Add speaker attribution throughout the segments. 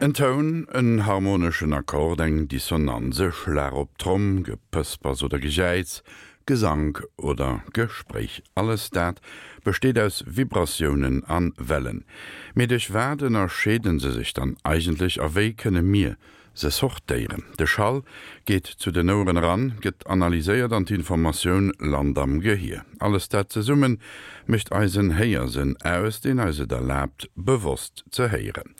Speaker 1: En Toun, en harmoneschen Akkord, eng Dissonanz, e Schlag op d'Tromm, Gepëspers oder Gejäiz, Gesank oder Gespréich, alles dat besteet aus Vibratiounen a Wellen. Mee duerch wat ënnerscheede se sech dann eigentlech a wéi kënne mir Se sortéieren. De Schall geet zu den Oueren eran, gëtt analyséiert an d'Informatioun lant am Gehier. Alles dat zesumme mécht eisen Héiersënn aus, deen eis et erlaabt, bewosst ze héieren.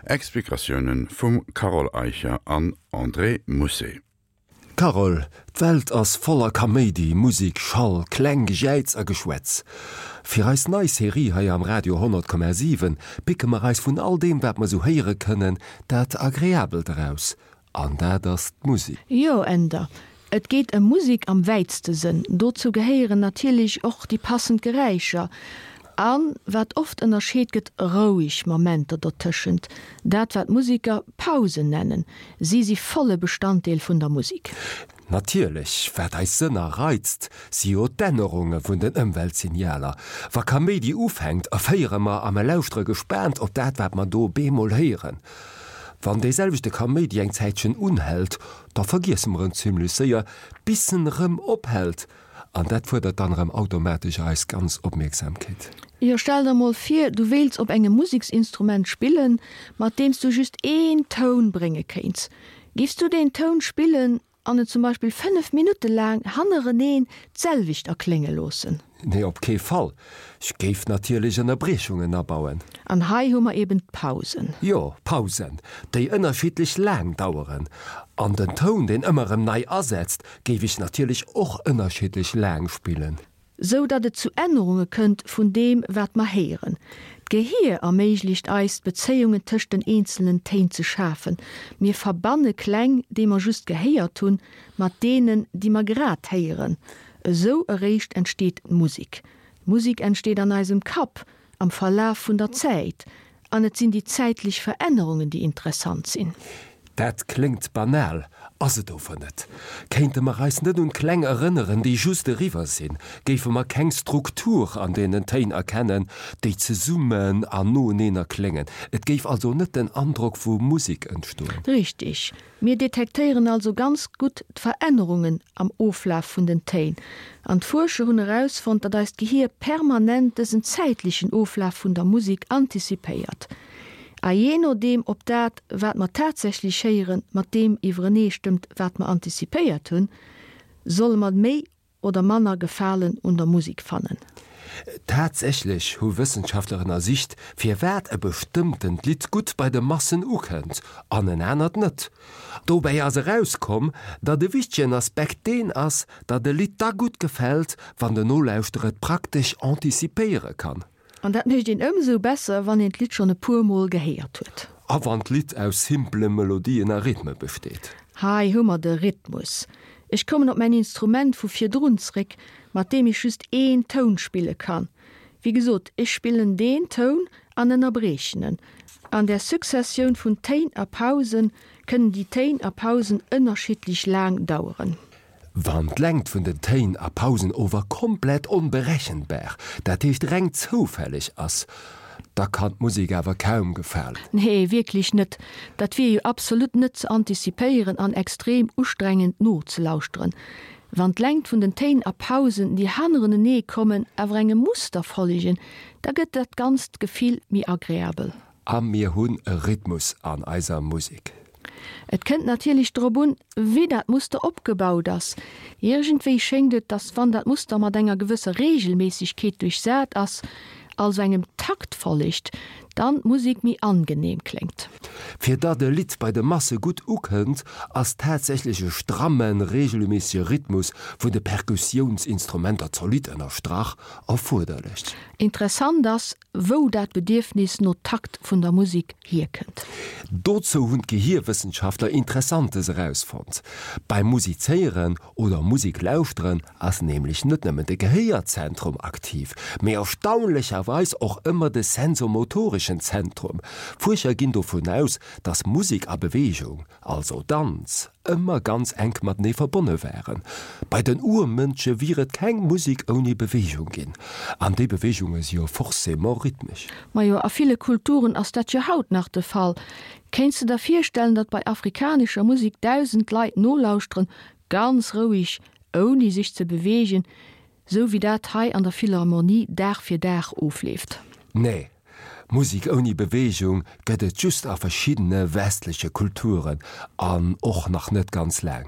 Speaker 1: Explikatioune vum Carole Eicher an André Mousset.
Speaker 2: Carole, D'Welt ass voller Kaméidi, Musik, Schall, Kläng, Gejäiz a Geschwätz. Fir eis nei Serie hei am Radio 100,7 picke mer eis vun all deem, wat mer sou héiere kënnen, dat Agreabelt eraus. An dat ass d'Musik.
Speaker 3: Jo, Änder. Et geet ëm Musik am wäitste Sënn. Dozou gehéieren natierlech och déi passend Geräischer an, wat oft ënnerscheet gëtt, roueg Momenter dotëschent, dat wat Museker Pausen nennen. Si si volle Bestanddeel vun der Musik.
Speaker 2: Natierlech, wat eis Sënner reizt, si jo d'Ännerunge vun den Ëmweltsignaler. Wa Kaméidi ufänkt, erféiere mer a mer lauschtere gespaant op dat, wat mer do bemol héieren. Wann dee selwechte Kaméidi eng Zäitchen unhält, da vergiesse mer en zimmlech séier, bis en erëm ophält. An dat fuerdert dann erëm automatesch eis ganz Opmierksamkeet.
Speaker 3: Jo, stell der mol vir, du wéilts op engem Museksinstrument spillen, mat deem s du just een Toun brénge kéints. Giffs du deen Toun spillen an en zum Beispill 5 Minutte laang hannereneen d'selwecht erklénge loossen?
Speaker 2: Nee, op kee Fall. Ech géif natierlech Ënnerbriechungen abauen.
Speaker 3: An hei hu mer eben d'Pausen.
Speaker 2: Jo, Pausen, déi ënnerschiddlech laang daueren. An den Toun, deen ëmmer erëm nei asetzt, géif ech natierlech och ënnerschiddlech laang spillen.
Speaker 3: Sou datt et zu Ännerunge kënnt vun deem, wat mer héieren. D'Gehier erméiglecht eis, d'Bezéiungen tëscht den eenzelnen Téin ze schafen. Mir verbanne Kläng, déi mer just gehéiert hunn, mat deenen, déi mer grad héieren. Esou eréischt entsteet d'Musek. D'Musek entsteet an eisem Kapp am Verlaf vun der Zäit, an et sinn déi zäitlech Verännerungen, déi interessant sinn.
Speaker 2: Dat kléngt banal, ass et ower net. Kéinte mer eis net un d'Kläng erënneren, déi just eriwwer sinn, géife mer keng Struktur an deenen Téin erkennen, déi zesummen an noeneen erkléngen. Et géif also net den Androck vu Musek entstoen.
Speaker 3: Richtig. Mir detektéieren also ganz gutt d'Verännerungen am Oflaf vun den Téin. An d'Fuerscher hunn erausfonnt, datt eist Gehier permanent dësen zäitlechen Oflaf vun der Musek antizipéiert. A jee nodeem ob dat, wat mer tatsächlech héieren, mat deem iwwereneestëmmt, wat mer antizipéiert hunn, solle mer méi oder manner Gefalen un der Musik fannen.
Speaker 2: Tatsächlech hu Wëssenschaftler ënnersicht, firwat e bestëmmtent Lidd gutt bei de Massen ukënnt an en anert net. Dobäi ass erauskomm, datt e wichtegen Aspekt deen ass, datt e Lidd da gutt gefält, wann den Nolauschterer et praktesch antizipéiere kann.
Speaker 3: An dat mécht een ëmsou besser, wann een d'Lidd schonn e puer Mol gehéiert huet.
Speaker 2: A wann d'Lidd aus simpele Melodien a Rhythme besteet.
Speaker 3: Hei hu mer de Rhythmus. Ech kommen op mäin Instrument vu virdrun zréck, mat deem ech just een Toun spille kann. Wéi gesot, ech spillen deen Toun an ënnerbriechen en. An der Successioun vun Téin a Pausen kënnen déi Téin a Pausen ënnerschiddlech laang daueren.
Speaker 2: Wann d'Längt vun den Téin a Pausen ower komplett onberechenbar, dat heescht reng zoufälleg ass, da kann d'Musek awer kaum gefalen.
Speaker 3: Nee, wierklech net. Dat wier jo absolut net ze antizipéieren an extrem ustrengend nozelauschteren. Wann d'Längt vun den Téin a Pausen, déi hannerenenee kommen, awer engem Muster follegen, da gëtt dat ganzt Gefill méi agreabel.
Speaker 2: A mir hunn e Rhythmus an eiser Musek.
Speaker 3: Et kënnt natierlech drop un, wéi dat Muster opgebaut ass. Iergendwéi schéngt et, dass wann dat Muster mat enger gewësser Reegelméissegkeet duerchsat ass, also engem Takt follegt, dann d'Musek méi angenehm kléngt.
Speaker 2: Fir datt e Lidd bei de Masse gutt ukënnt, ass tatsächlech e strammen, reegelméissege Rhythmus vun de Perkussiounsinstrumenter zolidd ënnerstrach erfuerderlech.
Speaker 3: Interessant ass, wou dat Bedierfnis no Takt vun der Musek hierkënnt.
Speaker 2: Dozou hunn d'Gehierwëssenschaftler Interessantes erausfonnt. Beim Musizéieren oder Musek lauschteren ass nämlech net nëmmen de Gehéierzentrum aktiv, mee erstaunlecherweis och ëmmer de sensomotoreschen Zentrum. Fuerscher ginn dovun aus, eraus, datt Musek a Beweegung, also Danz, ëmmer ganz enk matenee verbonne waren. Bei den Urmënsche wier et keng Musek ouni Beweegung ginn. An déi Beweegunge si jo forcément rhythmesch.
Speaker 3: Majo, a ville Kulturen ass dat jo haut nach de Fall. Kéints de der virstellen, datt bei afrikanescher Musek 1.000 Leit nolauschteren, ganz roueg, ouni sech ze beweegen, sou wéi dat hei an der Philharmonie Dag fir Dag ofleeft?
Speaker 2: Nee, Musek ouni Beweegung gëtt et just a verschiddene westleche Kulturen an och nach net ganz laang.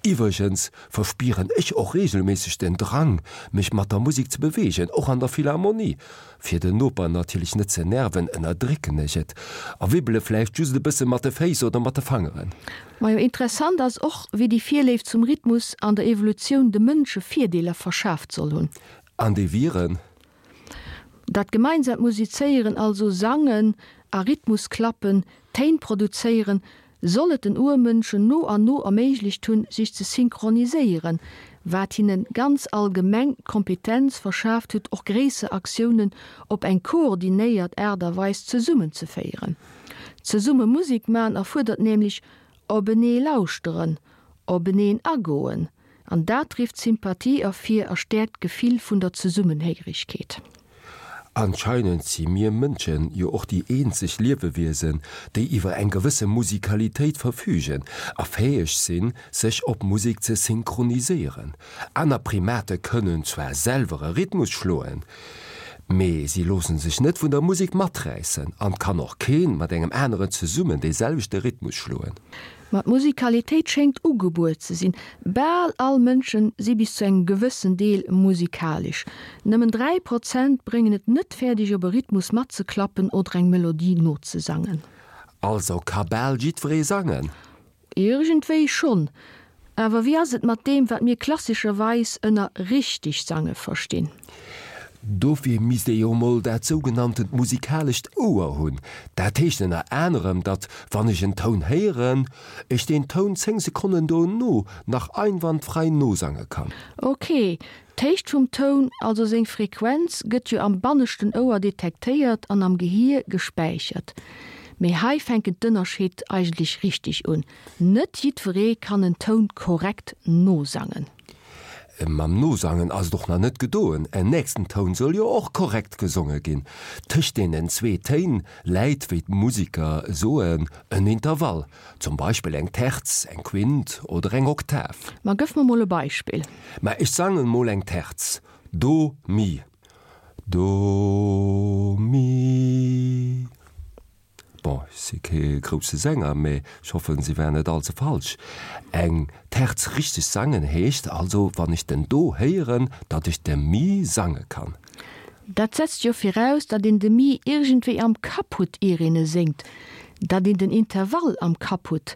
Speaker 2: Iwwregens verspieren ech och reegelméisseg den Drang, mech mat der Musek ze beweegen, och an der Philharmonie. Fir den Noper natierlech net ze nerven, ënnerdrécken ech et a wibbele vläicht just e bësse mat de Féiss oder mat de Fangeren.
Speaker 3: Majo, interessant ass och, wéi déi Virléift zum Rhythmus an der Evolutioun de Mënsche Virdeeler verschaaft soll hunn.
Speaker 2: An déi wieren?
Speaker 3: Dat gemeinsaamt Musizéieren, also Sangen a Rhythmusklappen, Téin produzéieren, soll et den Urmënschen no an no erméiglecht hunn, sech ze synchroniséieren, wat hinne ganz allgemeng d'Kompetenz verschaaft huet, och gréisser Aktiounen op eng koordinéiert Aart a Weis zesummenzeféieren. Zesumme Musek man erfuerdert nämlech openee lauschteren, openeen agoen, An dat rifft Sympathie ervir a stäerkt d'Gefill vun der Zesummenhéierigkeet.
Speaker 2: Anscheinend si mir Mënschen jo och déi eenzeg Liewewiesen, déi iwwer eng gewësse Musikalitéit verfügen a fäeg sinn, sech op Musek ze synchroniséieren. Aner Primate kënnen zwar selwer e Rhythmus schloen, mee si loosse sech net vun der Musek maträissen an 't kann och keen mat engem aneren zesummen dee selwechte Rhythmus schloen.
Speaker 3: Ma d'Musikalitéit schéngt ugebuer ze sinn. Bal all Mënschen si bis zu engem gewëssen Deel musikalesch. Nëmmen 3 Prozent bréngen et net fäerdeg op e Rhythmus matzeklappen oder eng Melodie nozesangen.
Speaker 2: Also ka bal jiddweree sangen?
Speaker 3: Iergendwéi schonn. Awer wéi ass et mat deem, wat mir klassescherweis ënner richteg sange verstinn?
Speaker 2: Dofir misst ee jo mol dat sougenanntent musikalescht Ouer hunn. Dat heescht ënner anerem, datt wann ech en Toun héieren, ech deen Toun 10 Sekonnen dono nach einwandfrei nosange kann.
Speaker 3: Ok, d'Héicht vum Toun, also seng Frequenz, gëtt jo am banneschten Ouer detektéiert an am Gehier gespäichert. Mee hei fänken d'Ënnerscheed eigentlech richteg un, Net jiddweree kann en Toun korrekt nosangen.
Speaker 2: Mam Nosangen ass et och nach net gedoen, en nächsten Toun soll jo och korrekt gesonge ginn. Tëscht deenen zwee Téin läit, wéi d'Musiker soen, en Intervall, zum Beispill eng Terz, eng Quint oder eng Oktav.
Speaker 3: Ma gëff mer mol e Beispill.
Speaker 2: Ma ech sangen mol eng Terz, Do, Mi, Do, Mi. Bon, ech si kee grousse Sänger, mee ech hoffen, se war net all ze falsch. Eng Terz richteg sangen heescht also, wann ech den Do héieren, datt ech de Mi sange kann.
Speaker 3: Dat setzt jo viraus, datt een de Mi iergendwéi am Kapp hutt, ier een e séngt, datt een den Intervall am Kapp hutt,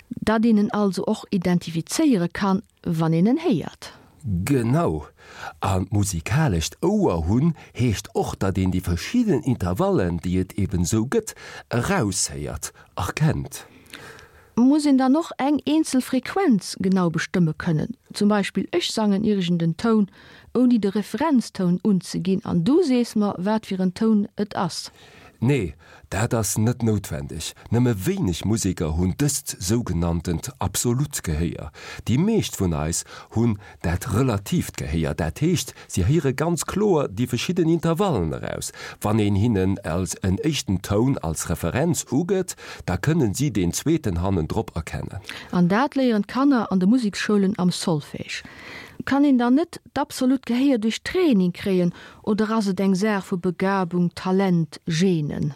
Speaker 3: datt een en also och identifizéiere kann, wann een en héiert.
Speaker 2: Genau! An d'musikalescht Ouer hunn heescht och, datt een déi verschidden Intervallen, déi et eben esou gëtt, eraushéiert, erkennt.
Speaker 3: Muss een dann och eng eenzel Frequenz genau bestëmme kënnen? Zum Beispill, ech sangen iergend en Toun, ouni de Referenztoun unzeginn, an du sees mer, wat fir en Toun et ass.
Speaker 2: Nee, dat ass net noutwendeg. Nëmme wéineg Museker hunn dëst sougenanntent absolut Gehéier. Déi meescht vun eis hunn dat relatiivt Gehéier, dat heescht, si héiere ganz kloer déi verschidden Intervallen eraus. Wann een hinnen als en éischten Toun als Referenz ugëtt, da kënnen si deen zweeten hannendrop erkennen.
Speaker 3: An dat léieren d'Kanner an de Museksschoulen am Solfège. Kann een dann net d'absolut Gehéier duerch Training kréien Oder ass et eng Saach vu Begabung, Talent, Genen?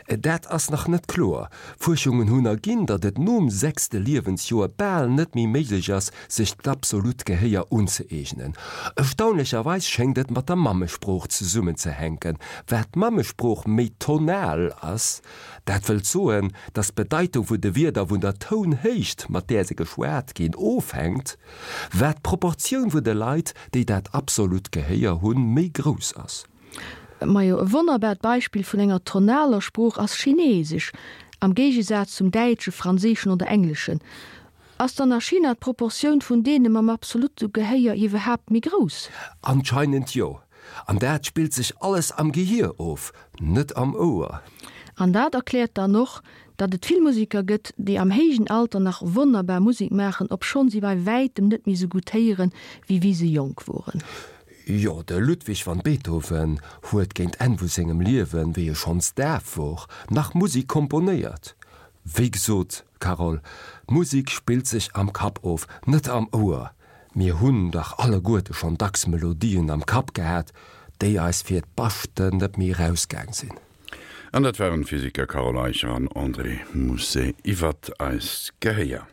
Speaker 2: Dat ass nach net kloer. Fuerschungen hunn erginn, datt et nom sechste Liewensjoer bal net méi méiglech ass, sech d'absolut Gehéier unzëeegnen. Erstaunlecherweis schéngt et mat der Mammesprooch zesummenzehänken. Wat d'Mammesprooch méi tonal ass, dat wëllt soen, datt d'Bedeitung vun de Wierder vun der Tounhéicht, mat där se geschwat ginn, ofhänkt, Wat d'Proportioun vun de Leit, déi dat absolut Gehéier hunn, méi grouss ass.
Speaker 3: Majo, e wonnerbart Beispill vun enger tonaler Sprooch ass Chinesesch, am Géigesaz zum Däitschen, Franséischen oder Engleschen. Ass dann a China d'Proportioun vun deene mam absolute Gehéier iwwerhaapt méi grouss?
Speaker 2: Anscheinend jo. An dat spillt sech alles am Gehier of, net am Ouer.
Speaker 3: An dat erkläert dann och, datt et vill Museker gëtt, déi am héijen Alter nach wonnerbar Musek maachen, obschonn si bei wäitem net méi sou gutt héieren, wéi wéi se jonk woren.
Speaker 2: Jo, de Ludwig van Beethoven huet géint Enn vu sengem Liewen, wéi e schonns daf wor, nach Musek komponéiert. Wéi gesot, Carole, d'Musek spillt sech am Kapp of, net am Ouer. Mir hunn dach alleguerte schonn dacks Melodien am Kapp gehat, déi eis fir d'Baschten net méi erausgaang sinn.
Speaker 1: An dat waren d'Physiker Carole Eicher an André Mousset iwwert eist Gehéier.